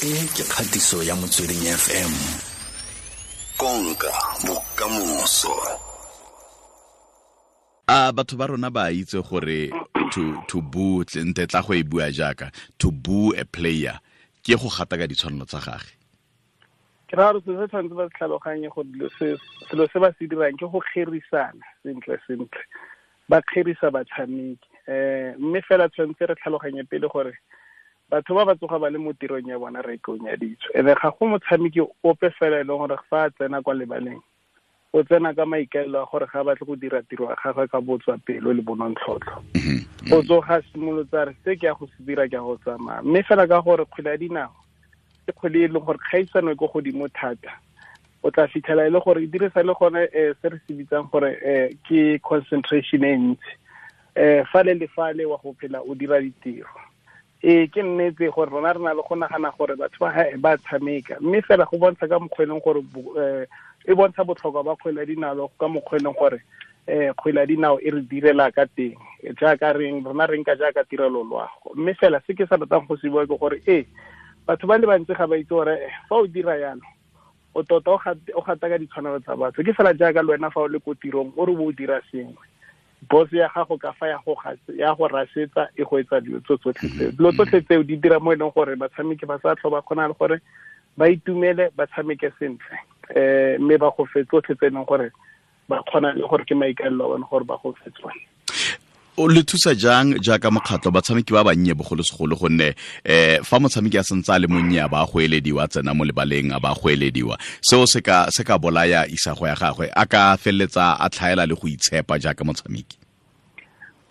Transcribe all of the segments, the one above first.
E ke kgatiso ya Motsweding FM. Konka bokamoso. A batho ba rona ba itse gore to boo, nte tla go e bua jaaka to boo a player ke go gata ka ditshwanelo tsa gage? Ke ra gore se tshwanetse ba se tlhaloganye gore selo se ba se dirang ke go kgerisana sentle sentle, ba kgerisa batshameki. Mme fela tshwanetse re tlhaloganye pele gore batho ba ba tsoga ba le mo tirong ya bona re ikonyaditswe, ene ga go motshameki ope fela e leng gore fa a tsena kwa lebaleng o tsena ka maikaelelo a gore ga batle go dira tiro ya gagwe ka botswa pelo le bonontlhotlho. O tsoga simolotsa re se ke ya go se dira ke ya go tsamaya, mme fela ka gore kgwele ya dinao ke kgwele e leng gore kgaisano e ko godimo thata, o tla fitlhela e le gore e dirisa le gone se re se bitsang gore ke concentration e ntsi. Fale le fale wa go phela o dira ditiro. Ke nnete gore rona re na le go nagana gore batho ba ba tshameka, mme fela go bontsha ka mokgwa e leng gore e bontsha botlhokwa ba kgwele ya dinao ka mokgwa e leng gore kgwele ya dinao e re direla ka teng, jaaka rona re nka jaaka tirelo loago. Mme fela se ke sa ratang go se bua ke gore batho ba le bantsi ga ba itse gore fa o dira yalo o tota o gata ka ditshwanelo tsa batho. Ke fela jaaka le wena fa o le ko tirong o re bo o dira sengwe, boss ya gago ka fa ya go rasetsa e go etsa dilo tso tsotlhe tseo. Dilo tsotlhe tseo di dira mo e leng gore batshameki ba sa tlho ba kgona le gore ba itumele, ba tshameke sentle, mme ba go fe tsotlhe tse e leng gore ba kgona le gore ke maikaelelo a bone gore ba go fe tsone. O le thusa jang jaaka mokgatlho batshameki ba bannye bogolosegolo, gonne fa motshameki a santse a le monnye a ba goelediwa, a tsena mo lebaleng a ba goelediwa, seo se ka bolaya isago ya gagwe, a ka feleletsa a tlhaela le go itshepa jaaka motshameki.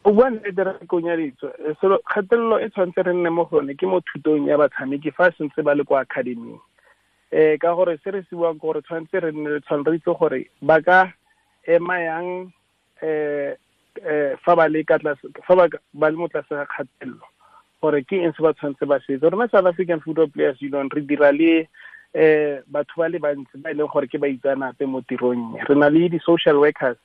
O bua nnete re konyaditswe. Selo kgatelelo e tshwanetse re nne mo go yone ke mo thutong ya batshameki fa sentse ba le kwa academy. Ka gore se re se buang ke gore tshwanetse re nne le tshwanelo, re itse gore ba ka ema yang fa ba le ka tlase, fa ba le mo tlase ga kgatelelo, gore ke eng se ba tshwanetse ba se etse. Rona South African Football Players Union re dira le batho ba le bantsi ba e leng gore ke baitseanape mo tirong e. Re na le di-social workers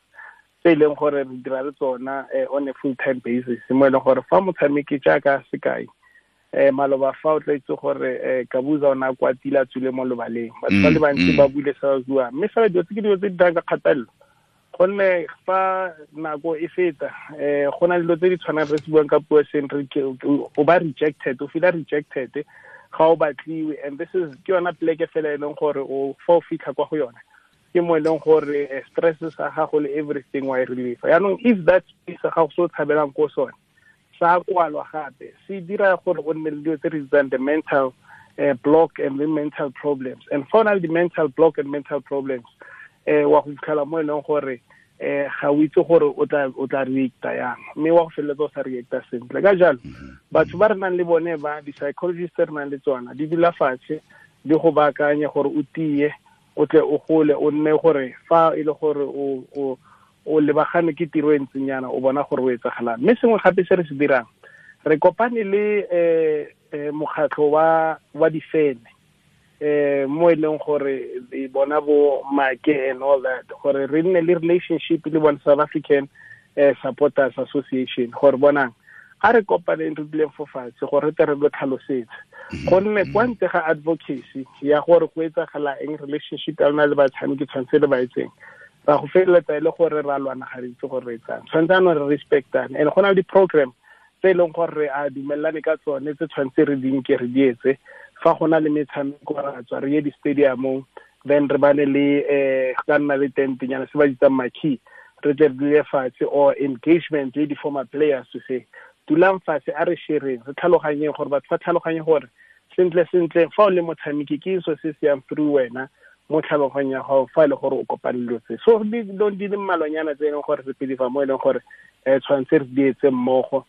tse e leng gore re dira le tsona on a full time basis, mo e leng gore fa motshameki jaaka sekai maloba fa o tla itse gore Kabuza o ne a kwatile a tswile mo lebaleng, batho ba le bantsi ba buile se ba buang, mme fela dilo tse ke dilo tse di dirang ka kgatelelo, gonne fa nako e feta go na le dilo tse di tshwanang re se buang ka puo seng, re o ba rejected, o feel rejected, ga o batliwe. And this is ke yona pleke fela e leng gore o fa o fitlha kwa go yone ke mo e leng gore stress sa gago le everything wa e reliefa. Yaanong if that space sa gago se o tshabelang ko sone sa kwalwa gape, se dira gore o nne le dilo tse re bitsang the mental block and the mental problems. And fa o na le di-mental block and mental problems, wa go fitlhela mo e leng gore ga o itse gore o tla reacta yang, mme wa go feleletsa o sa reacta sentle. Ka jalo batho ba re nang le bone ba di-psychologists tse re nang le tsona di dula fatshe di go baakanye gore o tie, o tle o gole, o nne gore fa e le gore o lebagane ke tiro e ntseng yana, o bona gore o etsagalang. Mme sengwe gape se re se dirang, re kopane le mokgatlho wa difene, mo e leng gore e bona bo Make and all that, gore re nne le relationship le bona South African Supporters Association, gore bonang a re kopaneng re duleng fo fatshe gore re tle re lo tlhalosetse. Gonne kwa ntle ga advocacy ya gore go etsagala eng, relationship ya lona le batshameki tshwanetse le ba etseng, ra go feleletsa e le gore ra lwana, ga re itse gore re etsang. Tshwanetse ano re respectane, and go na le di-program tse e leng gore re a dumellane ka tsone tse tshwanetse re di nke re di etse. Fa go na le metshameko ra tswa re ye di-stadiumong, then re bane le ka nna le tentenyana se ba bitsang marquee, re tle re dule fatshe, or engagement le di-former players to say dulang fatshe, a re shareng, re tlhaloganyeng gore batho ba tlhaloganye gore sentle sentle fa o le motshameki ke eng se se yang through wena mo tlhaloganyong ya gago fa e le gore o kopane le dilo tse. So dilo di le mmalwanyana tse e leng gore re pedifa mo e leng gore tshwanetse re di etse mmogo,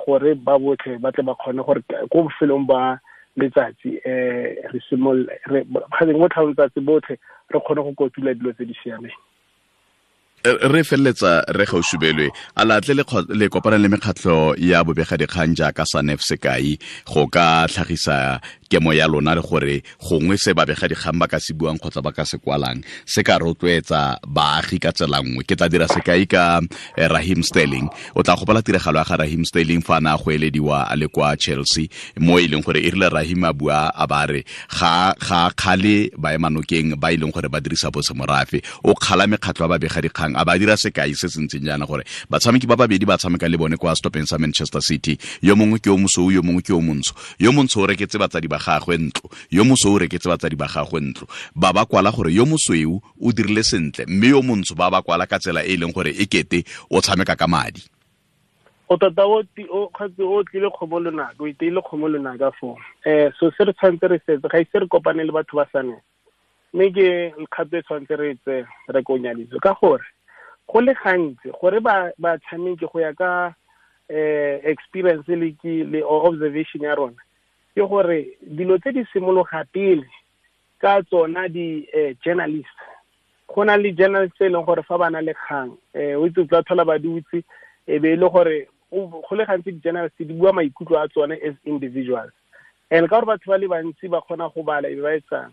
gore ba botlhe ba tle ba kgone gore ko bofelong ba letsatsi re simolole re ga mo tlhalong tsatsi botlhe re kgone go kotula dilo tse di siameng. Re feleletsa re Gaoshubelwe, a latle le kopana le mekgatlho ya bobegadikgang jaaka SANEF sekai go ka tlhagisa kemo ya lona le gore gongwe se babega dikgang ba ka se buang kgotsa ba ka se kwalang se ka rotloetsa baagi ka tsela nngwe. Ke tla dira sekai ka Raheem Sterling. O tla gopola tiragalo ya ga Raheem Sterling fa na go elediwa a le kwa Chelsea, mo e leng gore e rile Raheem a bua a ba re ga kgale baemanokeng ba e leng gore ba dirisa bosemorafe, o kgala mekgatlho ya babega dikgang a ba dira sekai se se ntseng jaana gore batshameki ba babedi ba tshameka le bone kwa stopeng sa Manchester City, yo mongwe ke o mosweu, yo mongwe ke o montsho, yo montsho o reketse batsadi ba gagwe ntlo, yo mosweu o reketse batsadi ba gagwe ntlo, ba ba kwala gore yo mosweu o dirile sentle mme yo montsho ba ba kwala ka tsela e e leng gore e kete o tshameka ka madi. O tota o tlile kgomo lonaka, o iteile kgomo lonaka foo. So se re tshwanetse re setse ga ise re kopane le batho ba sane, mme ke kgato e tshwanetse re tse re konyaditswe ka gore go le gantsi gore batshameki go ya ka experience le observation ya rona ke gore dilo tse di simologa pele ka tsona di journalist. Go na le journalist e leng gore fa ba na le kgang o itse tla thola ba dutse e be e le gore go le gantsi di-journalist di bua maikutlo a tsone as individuals, and ka gore batho ba le bantsi ba kgona go bala e be ba etsang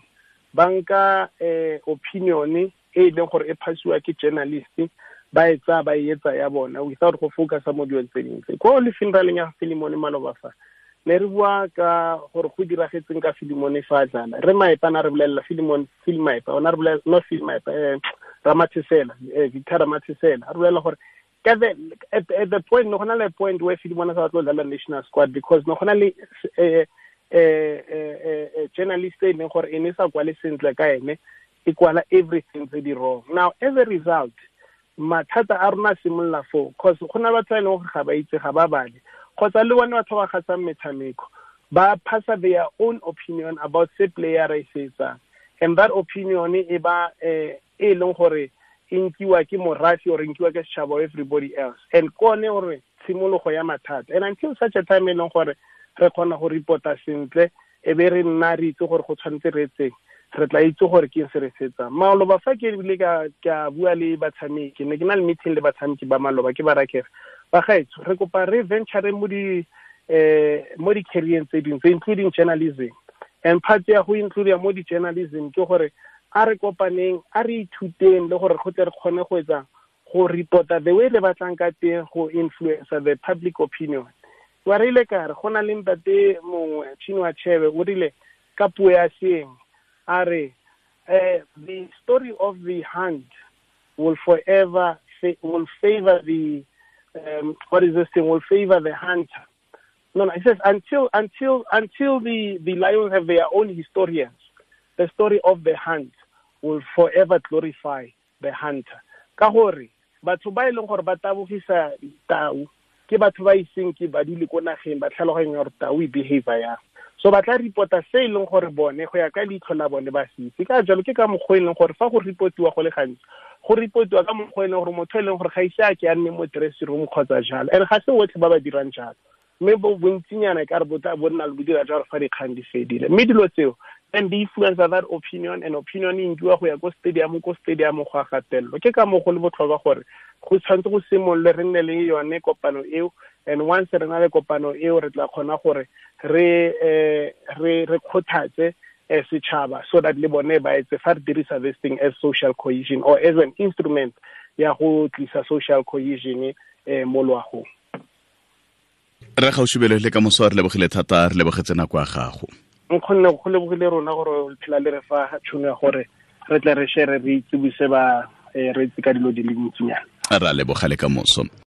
ba nka opinion e e leng gore e phasiwa ke journalist ba e tsaya ba e etsa ya bona without go focusa mo dilong tse dintsi. Ko le funeraleng ya Filimone maloba fa ne re bua ka gore go diragetseng ka Filimone fa jana re Maepa na re bolelela Filimone Phil Maepa ona re bolelela no Phil Maepa Ramathesela Victor Ramathesela re bolelela gore at the point no gona le point where Filimone sa tlo dlala national squad because no gona le journalist e leng gore e ne sa kwale sentle ka ene e kwala everything tse di wrong. Now as a result mathata a rona simolola foo cause go na batho ba e leng gore ga ba itse ga ba bale kgotsa le bone batho ba gasang metshameko ba phasa their own opinion about se player e se etsang, and that opinion e ba e leng gore e nkiwa ke morafe or e nkiwa ke setšhaba or everybody else, and kone gore tshimologo ya mathata. And until such a time e leng gore re kgona go reporta sentle e be re nna re itse gore go tshwanetse re etseng, re tla itse gore ke se re setsang. Maloba fa ke bile ka bua le batshameki, ne ke na le meeting le batshameki ba maloba ke ba rakere ba gaetsho re kopa re venture mo di career tse dingwe including journalism, and part ya go include mo di journalism ke gore a re kopaneng a re ithuteng le gore go tle re kgone go etsa go reporta the way le batlang ka teng go influence the public opinion. Wa rile ka re go na le ntate mongwe Chinua Achebe o rile ka puo ya seeng a re the story of the hunt will forever will favor the what is this thing will favor the hunter. No, it says until the lions have their own historians, the story of the hunt will forever glorify the hunter. Ka gore batho ba e leng gore ba tabogisa tau ke batho ba iseng ke ba dule ko nageng ba tlhaloganya gore tau e behavior ya. So ba tla reporta se e leng gore bone go ya ka leitlho la bone ba se itse. Ka jalo ke ka mokgwa e leng gore fa go reportiwa go le gantsi go reportiwa ka mokgwa e leng gore motho e leng gore ga ise a ke a nne mo dressing room kgotsa jalo, and ga se botlhe ba ba dirang jalo, mme bo bontsinyana e ka re bo nna le bo dira jalo fa dikgang di fedile. Mme dilo tseo then di influence that opinion, and opinion e nkiwa go ya ko stadium go a gatelelwa. Ke ka mo go le botlhokwa gore go tshwanetse go simolole re nne le yone kopano eo, and once re na le kopano eo re tla kgona gore re kgothatse setšhaba so that le bone ba etse fa re dirisa this thing as social cohesion or as an instrument ya go tlisa social cohesion mo loagong. Re Gaoshubelwe le ka moso re lebogile thata, re lebogetse nako ya gago. Nkgonne go lebogile rona gore phela le re fa tšhono ya gore re tle re share re itsebise ba re itse ka dilo di le dintsinyana. Ra leboga le ka moso.